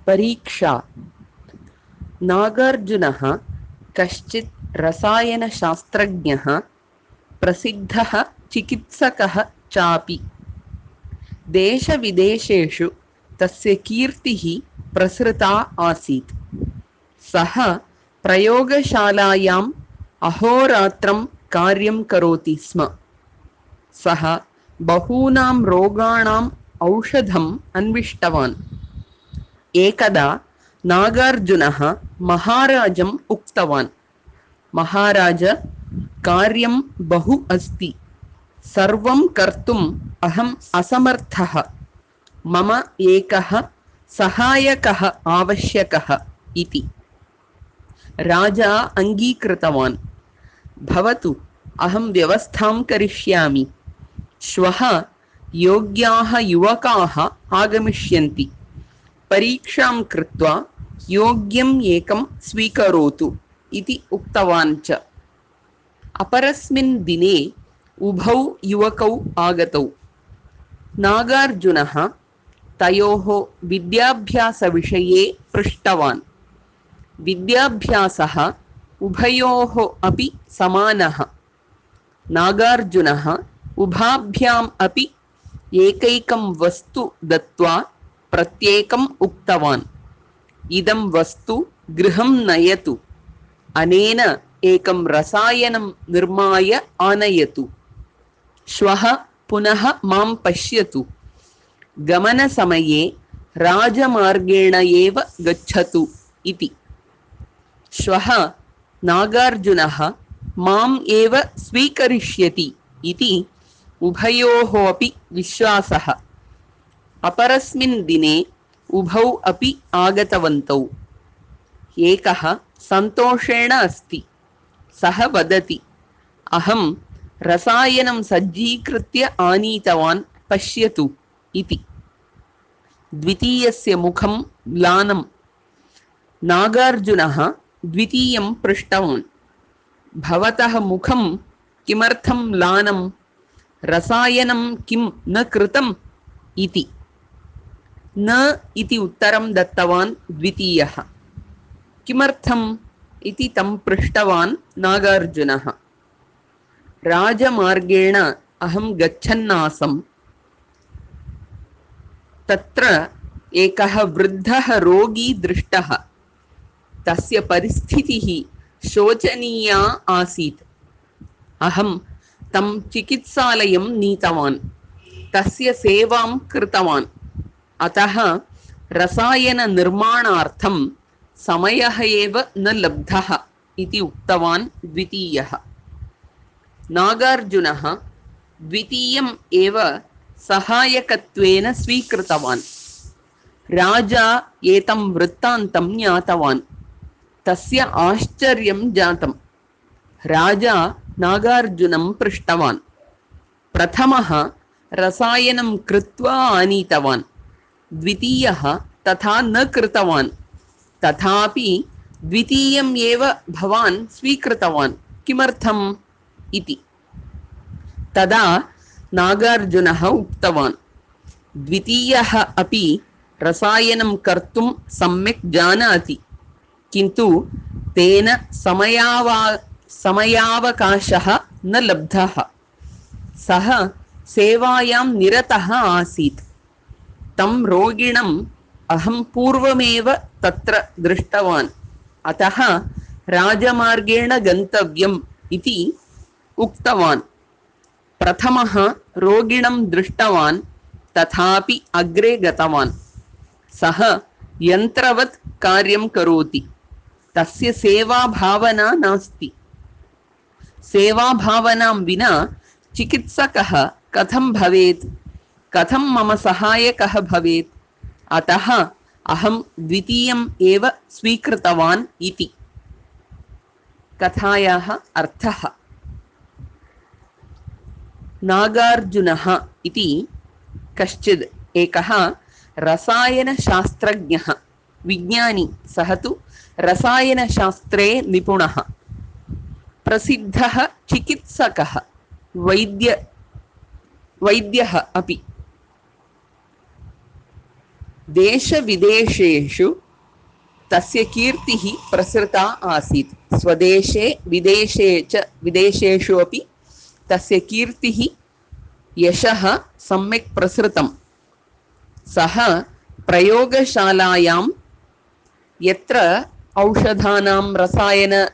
परीक्षा। नागार्जुनः कश्चित् रसायनशास्त्रज्ञः, प्रसिद्धः चिकित्सकः चापि। देशविदेशेषु तस्य कीर्तिः प्रसृता आसीत्। सः प्रयोगशालायाम् अहोरात्रं कार्यं करोति स्म। सः बहूनां रोगाणाम् औषधम् अन्विष्टवान्। एकदा नागार्जुनः महाराजम् उक्तवान्, महाराज, कार्यं बहु अस्ति, सर्वं कर्तुम् अहम् असमर्थः, मम एकः सहायकः आवश्यकः इति। राजा अङ्गीकृतवान्। भवतु, अहं व्यवस्थां करिष्यामि। श्वः योग्याः युवकाः आगमिष्यन्ति। परीक्षां कृत्वा योग्यम् एकं स्वीकरोतु इति उक्तवान् च। अपरस्मिन् दिने उभौ युवकौ आगतौ। नागार्जुनः तयोः विद्याभ्यासविषये पृष्टवान्। विद्याभ्यासः उभयोः अपि समानः। नागार्जुनः उभाभ्याम् अपि एकैकं वस्तु दत्त्वा प्रत्येकम् उक्तवान्, इदं वस्तु गृहं नयतु, अनेन एकं रसायनं निर्माय आनयतु, श्वः पुनः मां पश्यतु, गमनसमये राजमार्गेण एव गच्छतु इति। श्वः नागार्जुनः माम् एव स्वीकरिष्यति इति उभयोः अपि विश्वासः। अपरस्मिन् दिने उभौ अपि आगतवन्तौ। एकः सन्तोषेण अस्ति। सः वदति, अहं रसायनं सज्जीकृत्य आनीतवान्, पश्यतु इति। द्वितीयस्य मुखं म्लानं। नागार्जुनः द्वितीयं पृष्टवान्, भवतः मुखं किमर्थं म्लानं, रसायनं किं न कृतम् इति। न इति उत्तरं दत्तवान् द्वितीयः। किमर्थम् इति तं पृष्टवान् नागार्जुनः। राजमार्गेण अहं गच्छन्नासम्। तत्र एकः वृद्धः रोगी दृष्टः। तस्य परिस्थितिः शोचनीया आसीत्। अहं तं चिकित्सालयं नीतवान्, तस्य सेवां कृतवान्। अतः रसायननिर्माणार्थं समयः एव न लब्धः इति उक्तवान् द्वितीयः। नागार्जुनः द्वितीयम् एव सहायकत्वेन स्वीकृतवान्। राजा एतं वृत्तान्तं ज्ञातवान्। तस्य आश्चर्यं जातम्। राजा नागार्जुनं पृष्टवान्। प्रथमः रसायनं कृत्वा आनीतवान्, द्वितीयः तथा न कृतवान्, तथापि द्वितीयम् एव भवान् स्वीकृतवान्, किमर्थम् इति। तदा नागार्जुनः उक्तवान्, द्वितीयः अपि रसायनं कर्तुं सम्यक् जानाति, किन्तु तेन समयावकाशः न लब्धः। सः सेवायां निरतः आसीत्। तं रोगिणम् अहं पूर्वमेव तत्र दृष्टवान्, अतः राजमार्गेण गन्तव्यम् इति उक्तवान्। प्रथमः रोगिणं दृष्टवान्, तथापि अग्रे गतवान्। सः यन्त्रवत् कार्यं करोति। तस्य सेवाभावना नास्ति। सेवाभावनां विना चिकित्सकः कथं भवेत्, कथं मम सहायकः भवेत्, अतः अहं द्वितीयम् एव स्वीकृतवान् इति। कथायाः अर्थः। नागार्जुनः इति कश्चिद् एकः रसायनशास्त्रज्ञः, विज्ञानी। सः तु रसायनशास्त्रे निपुणः, प्रसिद्धः चिकित्सकः, वैद्यः अपि। देशविदेशेषु तस्य कीर्तिः प्रसृता आसीत्। स्वदेशे विदेशेषु अपि तस्य कीर्तिः यशः सम्यक् प्रसृतं। सः प्रयोगशालायां यत्र औषधानां रसायन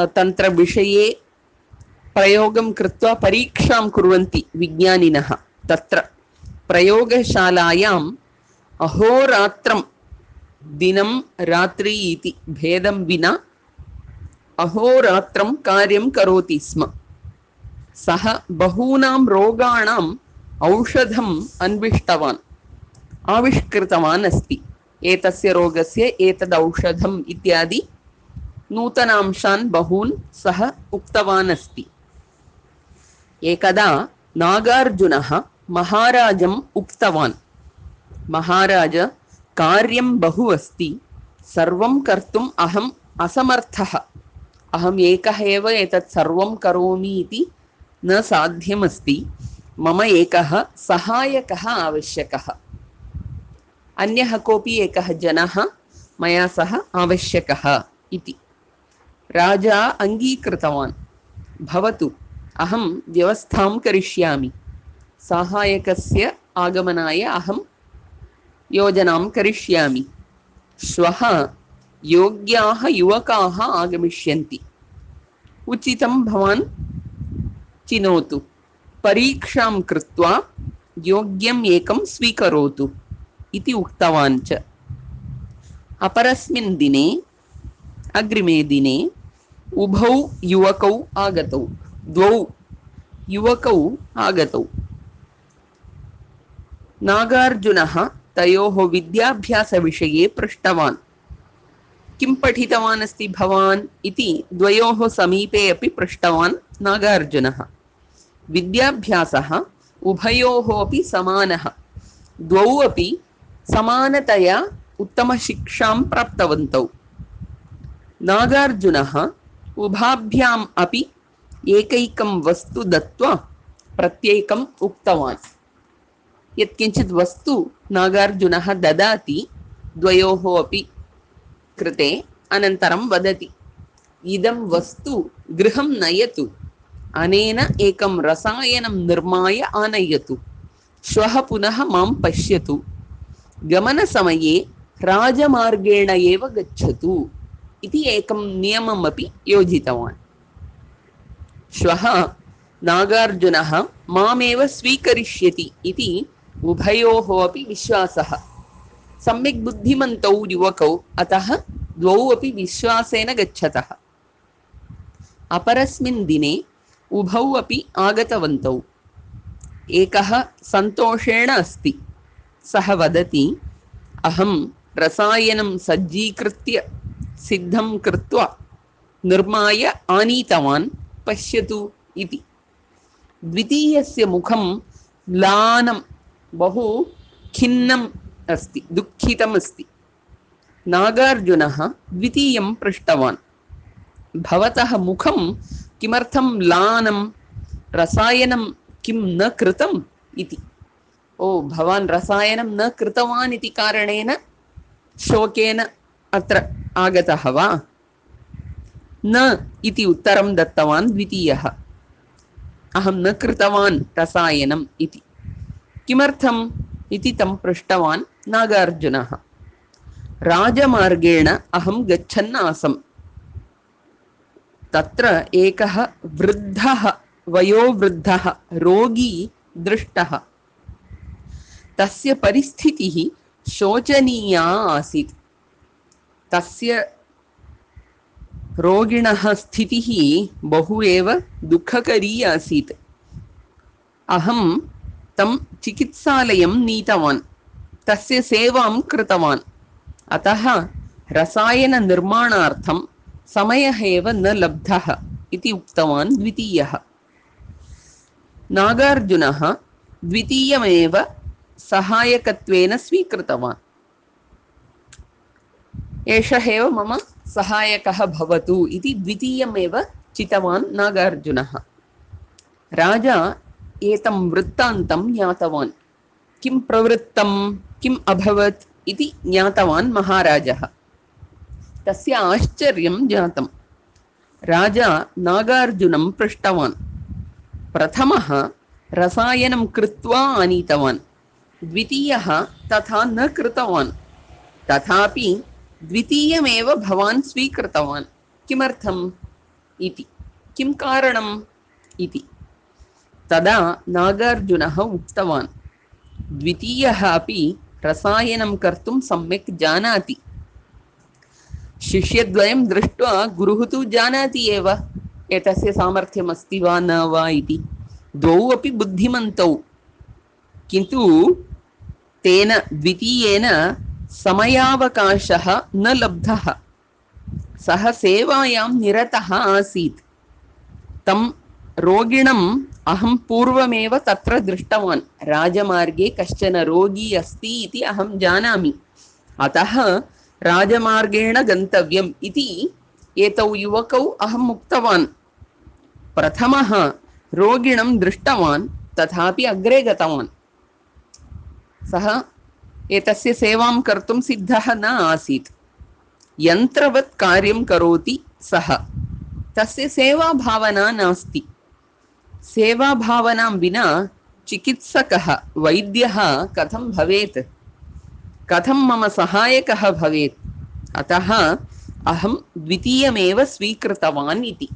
तन्त्रविषये प्रयोगं कृत्वा परीक्षां कुर्वन्ति विज्ञानिनः, तत्र प्रयोगशालायाम् अहोरात्रं दिनं रात्रि इति भेदं विना अहोरात्रं कार्यं करोति स्म। सः बहूनां रोगाणाम् औषधम् अन्विष्टवान्, आविष्कृतवान् अस्ति। एतस्य रोगस्य एतद् औषधम् इत्यादि नूतनांशान् बहून् सः उक्तवान् अस्ति। एकदा नागार्जुनः महाराजम् उक्तवान्, महाराज, कार्यं बहु अस्ति, सर्वं कर्तुम् अहम् असमर्थः। अहम् एकः एव एतत् सर्वं करोमि इति न साध्यमस्ति। मम एकः सहायकः आवश्यकः। अन्यः कोऽपि एकः जनः मया सह आवश्यकः इति। राजा अङ्गीकृतवान्। भवतु, अहं व्यवस्थां करिष्यामि। सहायकस्य आगमनाय अहं योजनां करिष्यामि। श्वः योग्याः युवकाः आगमिष्यन्ति। उचितं भवान् चिनोतु। परीक्षां कृत्वा योग्यम् एकं स्वीकरोतु इति उक्तवान् च। अपरस्मिन् दिने, अग्रिमे दिने उभौ युवकौ आगतौ। द्वौ युवकौ आगतौ। नागार्जुनः तयोः विद्याभ्यासविषये पृष्टवान्। किं पठितवान् अस्ति भवान् इति द्वयोः समीपे अपि पृष्टवान् नागार्जुनः। विद्याभ्यासः उभयोः अपि समानः। द्वौ अपि समानतया उत्तमशिक्षां प्राप्तवन्तौ। नागार्जुनः उभाभ्याम् अपि एकैकं वस्तु दत्त्वा प्रत्येकम् उक्तवान्। यत्किञ्चित् वस्तु नागार्जुनः ददाति द्वयोः अपि कृते, अनन्तरं वदति, इदं वस्तु गृहं नयतु, अनेन एकं रसायनं निर्माय आनयतु, श्वः पुनः मां पश्यतु, गमनसमये राजमार्गेण एव गच्छतु इति एकं नियममपि योजितवान्। श्वः नागार्जुनः मामेव स्वीकरिष्यति इति उभयोः अपि विश्वासः। सम्यक् बुद्धिमन्तौ युवकौ, अतः द्वौ अपि विश्वासेन गच्छतः। अपरस्मिन् दिने उभौ अपि आगतवन्तौ। एकः सन्तोषेण अस्ति। सः वदति, अहं रसायनं सज्जीकृत्य सिद्धं कृत्वा निर्माय आनीतवान्, पश्यतु इति। द्वितीयस्य मुखं म्लानं, बहु खिन्नम् अस्ति, दुःखितम् अस्ति। नागार्जुनः द्वितीयं पृष्टवान्, भवतः मुखं किमर्थं म्लानं, रसायनं किं न कृतम् इति। ओ, भवान् रसायनं न कृतवान् इति कारणेन शोकेन अत्र आगतः वा? न इति उत्तरं दत्तवान् द्वितीयः। अहं न कृतवान् रसायनम् इति। किमर्थम् इति तं पृष्टवान् नागार्जुनः। राजमार्गेण अहं गच्छन् आसम्। तत्र एकः वृद्धः, वयोवृद्धः रोगी दृष्टः। तस्य परिस्थितिः शोचनीया आसीत्। तस्य रोगिणः स्थितिः बहु एव दुःखकरी आसीत्। अहं तं चिकित्सालयं नीतवान्, तस्य सेवां कृतवान्। अतः रसायननिर्माणार्थं समयः एव न लब्धः इति उक्तवान् द्वितीयः। नागार्जुनः द्वितीयमेव सहायकत्वेन स्वीकृतवान्। एषः एव मम सहायकः भवतु इति द्वितीयमेव चितवान् नागार्जुनः। राजा एतं वृत्तान्तं ज्ञातवान्। किं प्रवृत्तं? किम् अभवत् इति ज्ञातवान् महाराजः। तस्य आश्चर्यं जातं। राजा नागार्जुनं पृष्टवान्। प्रथमः रसायनं कृत्वा आनीतवान्, द्वितीयः तथा न कृतवान्, तथापि द्वितीयमेव भवान् स्वीकृतवान्, किमर्थम् इति, किं कारणम् इति। तदा नागार्जुनः उक्तवान्, द्वितीयः अपि रसायनं कर्तुं सम्यक् जानाति। शिष्यद्वयं दृष्ट्वा गुरुः तु जानाति एव एतस्य सामर्थ्यम् अस्ति वा न वा इति। द्वौ अपि बुद्धिमन्तौ, किन्तु तेन द्वितीयेन समयावकाशः न लब्धः। सः सेवायां निरतः आसीत्। तं रोगिणम् अहं पूर्वमेव तत्र दृष्टवान्। राजमार्गे कश्चन रोगी अस्ति इति अहं जानामि, अतः राजमार्गेण गन्तव्यम् इति एतौ युवकौ अहम् उक्तवान्। प्रथमः रोगिणं दृष्टवान्, तथापि अग्रे गतवान्। सः एतस्य सेवां कर्तुं सिद्धः न आसीत्। यन्त्रवत् कार्यं करोति सः, तस्य सेवाभावना नास्ति। सेवाभावनां विना चिकित्सकः, वैद्यः कथं भवेत्, कथं मम सहायकः भवेत्। अतः अहं द्वितीयमेव स्वीकृतवान् इति।